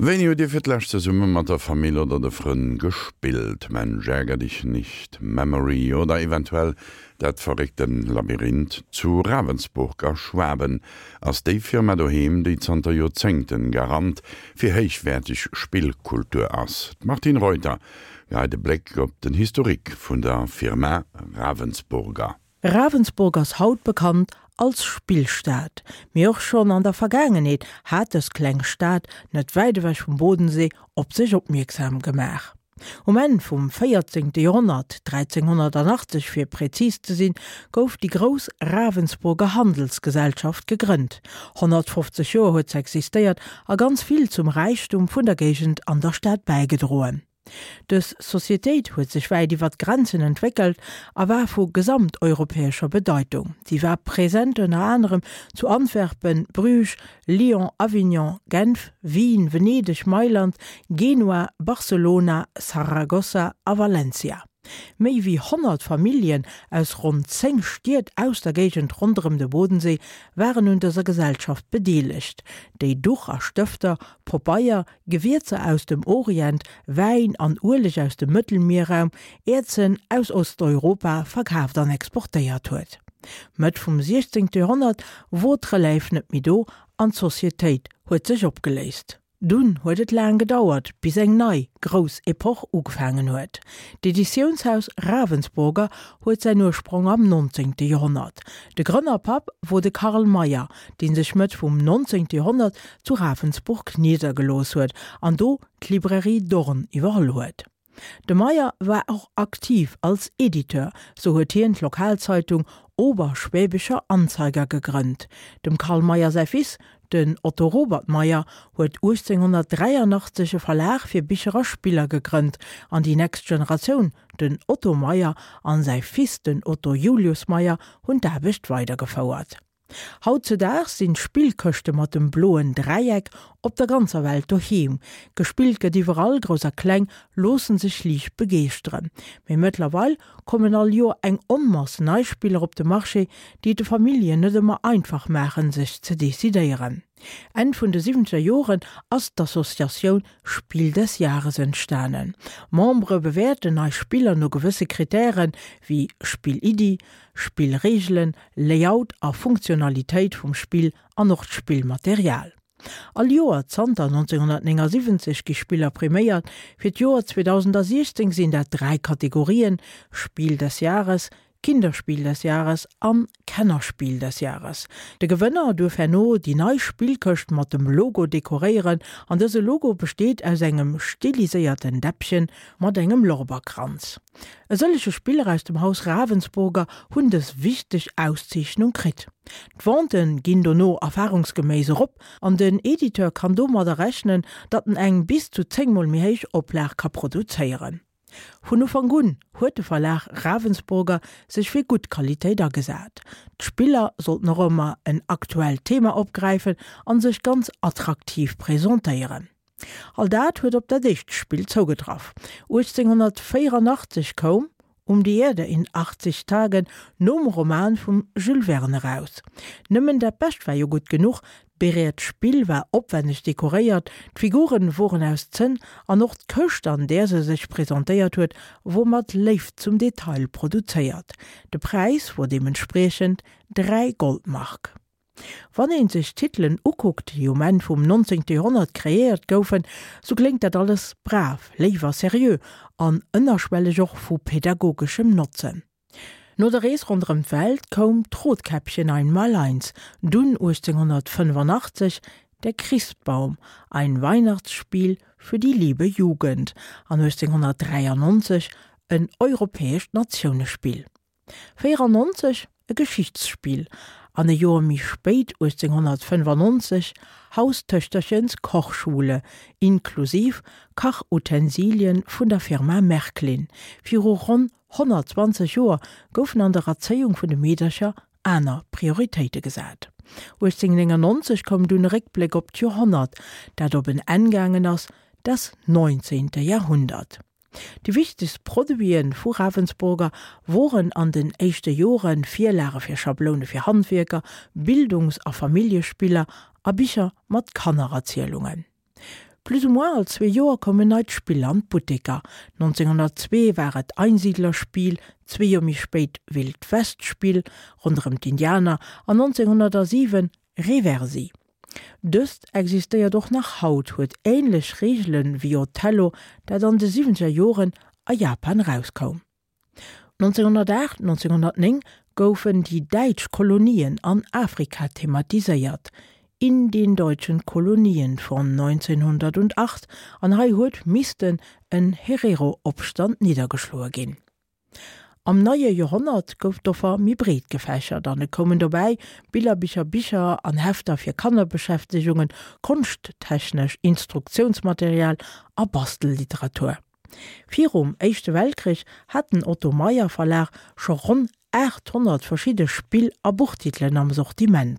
Wéini hutt Dir fir d'lescht zesumme mat der Famill oder de Frënn gespillt? Mensch ärger dich nicht, Memory oder eventuell dat verréckte Labyrinth zu Ravensburg a Schwaben ass déi Firma doheem, déi zanter Joerzéngten Garant fir héichwäerteg Spillkultur ass. D'Martine Reuter geheit e Bléck op den Historique vun der Firma Ravensburger. Ravensburg ass haut bekannt als Spillstad, mee och schonn an der Vergaangenheet hat dës kleng Stad net wäit ewech vum Bodensee op sech opmierksam gemaach. Um Enn vum 14. Joerhonnert, 1380 fir präzis ze sinn, gouf déi grouss Ravensburger Handelsgesellschaft gegrënnt. 150 Joer huet se existéiert a ganz vill zum Räichtum vun der Géigend an der Stad bäigedroen. Dës Societéit huet sech wäit iwwer d'Grenzen entwéckelt a war vu gesamteuropäescher Bedeitung. Si war present ënner anerem zu Antwerpen, Bruges, Lyon, Avignon, Genf, Wien, Venedeg, Mailand, Genua, Barcelona, Saragossa a Valencia. Méi wéi 100 Familljen aus ronn 10 Stied aus der Géigend ronderëm de Bodensee waren un dëser Gesellschaft bedeelegt, déi Duch a Stëfter, Pobeier, Gewierzer aus dem Orient, Wäin an Ueleg aus dem Mëttelmierraum, Äerzen aus Osteuropa verkaaft an exportéiert huet. Mëtt vum 16. Joerhonnert wor d'Relève net méi do an d'Societéit huet sech opgeléist. Dunn huet et laang gedauert, bis eng nei, grouss Epoch ugefaangen huet. D'Editiounshaus Ravensburger huet säin Ursprong am 19. Joerhonnert. De Grënnerpapp wor de Carl Mayer, dee sech Mëtt vum 19. Joerhonnert zu Ravensburg niddergelooss huet an do d'Librairie Dorn iwwerholl huet. De Meyer war och aktiv als Editeur, sou huet hien d'Lokalzeitung Oberschwäbischer Anzeiger gegrënnt. Dem Carl Meyer säi Fils, den Otto Robert Meyer, huet 1883 e Verlag fir Bicher a Spiller gegrënnt an déi nächst Generatioun, den Otto Meyer an säi Fils, den Otto Julius Meyer, hunn d'Aarbecht weidergefouert. Hautzedaags sinn d'Spillkëschte mat dem bloen Dräieck op der ganzer Welt doheem. Gespillt gëtt iwwerall, Grouss a Kleng loossen sech liicht begeeschteren. Mee mëttlerweil kommen all Joer eng Onmass nei Spiller op de Marché, déi et de Familljen net ëmmer einfach maachen, sech ze decidéieren. Enn vun de siwwenzeger Joren ass d'Associatioun Spiel des Jahres entstanen. Membere bewäerten nei Spiller no gewësse Krittären, wéi Spilliddi, Spillreegelen, Layout a Funktionalitéit vum Spill an och d'Spillmaterial. All Joer zanter 1979 gi Spiller priméiert. Fir d'Joer 2016 sinn dat 3 Kategorien, Spiel des Jahres, Kinderspiel des Jahres an Kennerspiel des Jahres. De Gewënner duerf herno déi nei Spillkëscht mat dem Logo dekoréieren an dëse Logo besteet aus engem stiliséierten Däppchen mat engem Lorberkranz. E sëllege Spiller aus dem Haus Ravensburger hunn dës wichteg Auszeechnung kritt. D'Venten ginn dono erfarungsgeméiss erop an den Editeur kann domadder rechnen, datt en eng bis zu 10 mol méi héich Oplag ka produzéieren. Vun Ufank un huet de Verlag Ravensburger sech fir gutt Qualitéit agesat. D'Spiller sollten och ëmmer en aktuellt Thema opgräifen an sech ganz attraktiv presentéieren. All dat huet op dat éischt Spill zougetraff. 1884 koum Um die Erde in 80 Tagen nom Roman vum Jules Verne eraus. Nëmmen dat Bescht war jo gutt genuch, d'Bereet Spill war opwenneg dekoréiert, d'Figuren woren aus Zënn an och d'Këscht an där se sech presentéiert huet wor mat Léift zum Detail produzéiert. De Präis wor deementspriechend 3 Goldmark. Wann een sech d'Titelen ukuckt, déi um Enn vum 19. Joerhonnert kreéiert goufen, sou kléngt dat alles brav, léif a seriö an ënnerschwelleg och vu pädagogeschem Notzen. No der Rees ronderëm d'Welt koum d'Rotkäppchen Einmaleins, dunn 1885 Der Christbaum, ein Weihnachtsspiel für die liebe Jugend an 1893 en europäescht Natiounespill. 94 e Geschichtsspill an e Joer méi spéit, 1895, Haustöchterchens Kochschule inklusiv Kachutensilien vun der Firma Märklin. Viru ronn 120 Joer goufen an der Erzéiung vun de Meedercher aner Prioritéite gesat. 1899 koum dunn e Réckbléck op d'Joerhonnert, dat op en Enn gaangen ass, Das neunzehnte Jahrhundert. Déi wichtegst Produite vu Ravensburger woren an den éischte Jore Virlage fir Schabloune fir Handwierker, Bildungs a Familljespiller a Bicher mat Kannererzielungen. Plus ou moins all zwee Joer koum en neit Spill an d'Butteker. 1902 war et Einsiedlerspiel, zwee Joer méi spéit Wild-West-Spill ronderëm d'Indianer an 1907 Reversi. Dëst existéiert och nach haut, huet änlech Reegele wéi Othello, dat an de siwwenzeger Joren a Japan erauskoum. 1908, 1909 goufen déi däitsch Kolonien an Afrika thematiséiert, In den deutschen Kolonien von 1908, an hei huet missten en Herero-Opstand niddergeschloe ginn. Am neie Joerhonnert gouf d'Offer méi breet gefächert an et koumen dobäi Billerbicher, Bicher an Hefter fir Kannerbeschäftegungen, konschttechnesch Instruktiounsmaterial a Bastelliteratur. Virum Éischte Weltkrich hat den Otto Meyer Verlag scho ronn 800 verschidde Spill a Buchtitelen am Sortiment.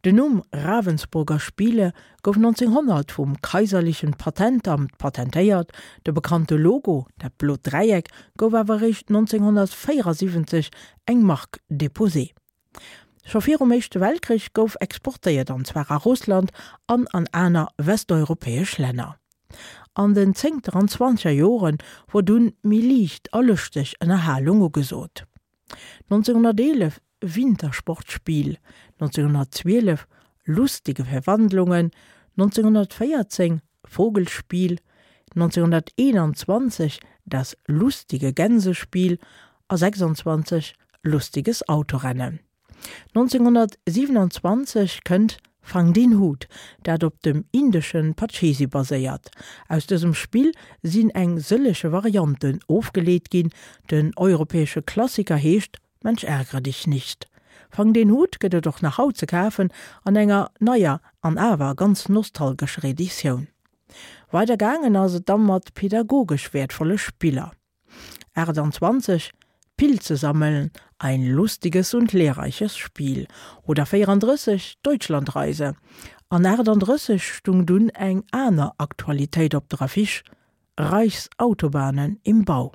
Den Numm Ravensburger Spiele gouf 1900 vum Kaiserlichen Patentamt patentéiert, de bekannte Logo, dat blot Dräieck, gouf awer eréischt 1974 eng Marque déposée. Scho virum Éischte Weltkrich gouf exportéiert, an zwar a Russland an an aner westeuropäesch Länner. An den zéngter an zwanzeger Jore wor dunn méi liicht a lëschteg Ënnerhalung ugesot. 1911 Wintersportspiel, 1912 Lustige Verwandlungen, 1914 Vogelspiel, 1921 Das lustige Gänsespiel a 26 Lustiges Autorennen. 1927 kënnt Fang den Hut, dat op dem indeschen Pachisi baséiert. Aus dësem Spill sinn eng sëllege Varianten ofgeleet ginn, den europäesche Klassiker heescht Mensch ärgere dich nicht. Fang den Hut gëtt et och nach haut ze kafen an enger neier an awer ganz nostalgescher Editioun. Weider gaangen ass et da mat pädagogesch wäertvolle Spiller. 28, Pilze sammeln, ein lustiges und lehrreiches Spiel oder 34, Deutschlandreise. An 38 stung dunn eng aner Aktualitéit op der Affiche, Reichsautobahnen im Bau.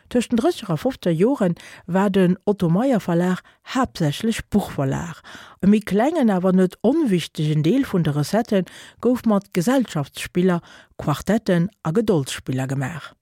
Tëscht den drësseger a fofzeger Jore war den Otto Meyer Verlag haaptsächlech Buchverlag. E méi klengen, awer net onwichtegen Deel vun de Recettë gouf mat Gesellschaftsspiller, Quartetten a Gedoldsspiller gemaach.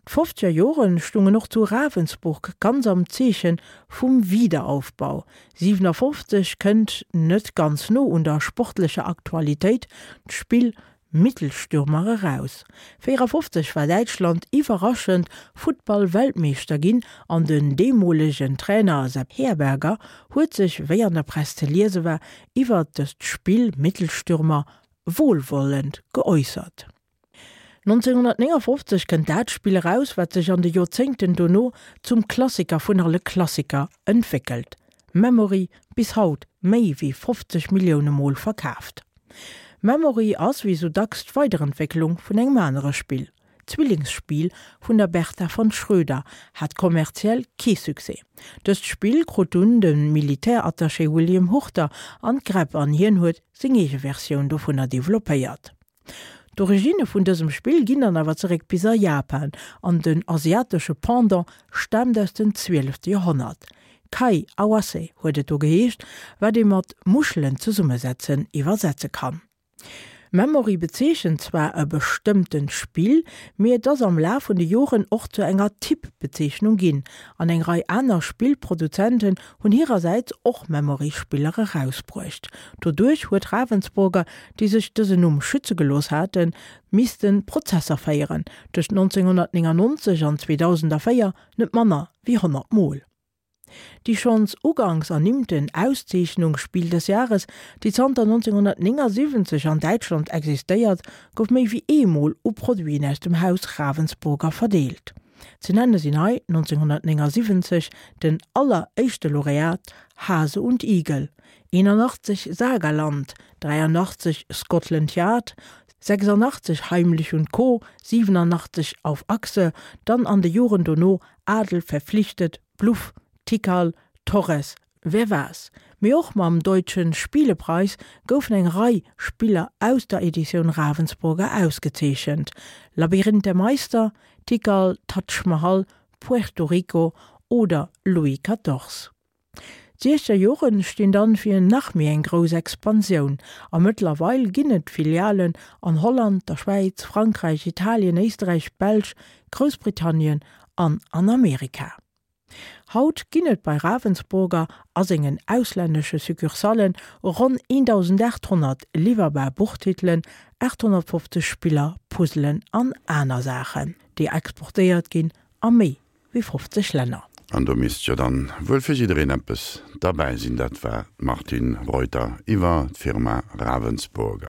D'fofzeger Jore stungen och zu Ravensburg ganz am Zeeche vum Wiederaufbau. 57 kënnt, net ganz no un der sportlecher Aktualitéit, d'Spill Mittelstürmer eraus. 54 war Däitschland iwwerraschend Futtball-Weltmeeschter ginn an den deemolegen Trainer Sepp Herberger huet sech, wéi an der Press ze liese war, iwwert dëst Spill Mittelstürmer wohlwollend geäussert. 1959 kënnt dat Spill eraus, wat sech an de Joerzéngten dono zum Klassiker vun alle Klassiker entwéckelt, Memory, bis haut méi wéi 50 Millioune Mol verkaaft. Memory ass wéi sou dacks d'Weiderentwécklung vun engem anere Spill. D'Zwillingsspill vun der Bertha von Schröder hat kommerziell kee Succès. Dëst Spill krut dunn de Militärattaché William Hurter an d'Gräpp an hien huet seng eege Versioun dovunner developpéiert. D'Originne vun dësem Spill ginn dann awer zeréck bis a Japan an den asiatesche Pendant staamt aus dem zwielefte Joerhonnert. Kai Awase huet et do geheescht, wat ee mat Muschelen zesummesetzen iwwersetze kann. Memory bezeechent zwar e bestëmmtent Spill, mee et ass am Laf vun de Joren och zu enger Typ-Bezeechnung ginn, an eng Rei aner Spillproduzenten hunn hirersäits och Memory-Spiller erausbruecht. Doduerch huet Ravensburger, déi sech dësen Numm schütze gelooss haten, misste Prozesser féieren, tëscht 1999 an 2004 net manner wéi 100 Mol. Déi schonns uganks ernimmten Auszeechnung Spiel des Jahres, déi zanter 1979 an Däitschland existéiert, gouf méi wéi eemol u Produiten aus dem Haus Ravensburger verdeelt. Ze nenne sinn hei 1979 den alleréischte Laureat Hase und Igel, 81 Sagaland, 83 Scotland Yard, 86 Heimlich und Co., 87 Auf Achse, dann an de Joren dono Adel verpflichtet, Bluff, Tikal, Torres, Wer war's? Mee och mam Deutschen Spielepreis goufen eng Rei Spiller aus der Editioun Ravensburger ausgezeechent, Labyrinth der Meister, Tikal, Taj Mahal, Puerto Rico oder Louis Quatorze. D'Siechzeger Joren stinn dann fir nach méi eng grouss Expansioun a mëttlerweil ginn et Filialen an Holland, der Schwäiz, Frankräich, Italien, Éisterräich, Belsch, Groussbritannien an an Amerika. Haut ginn et bei Ravensburger a sengen auslännesche Succursallen ronn 1.800 liwwerbar Buchtitelen, 850 Spiller, Puzzelen an aner Saachen, déi exportéiert ginn a méi wéi 50 Länner. An do misst jo dann wuel fir jiddereen eppes derbäi sinn. Dat war d'Martine Reuter iwwer d'Firma Ravensburger.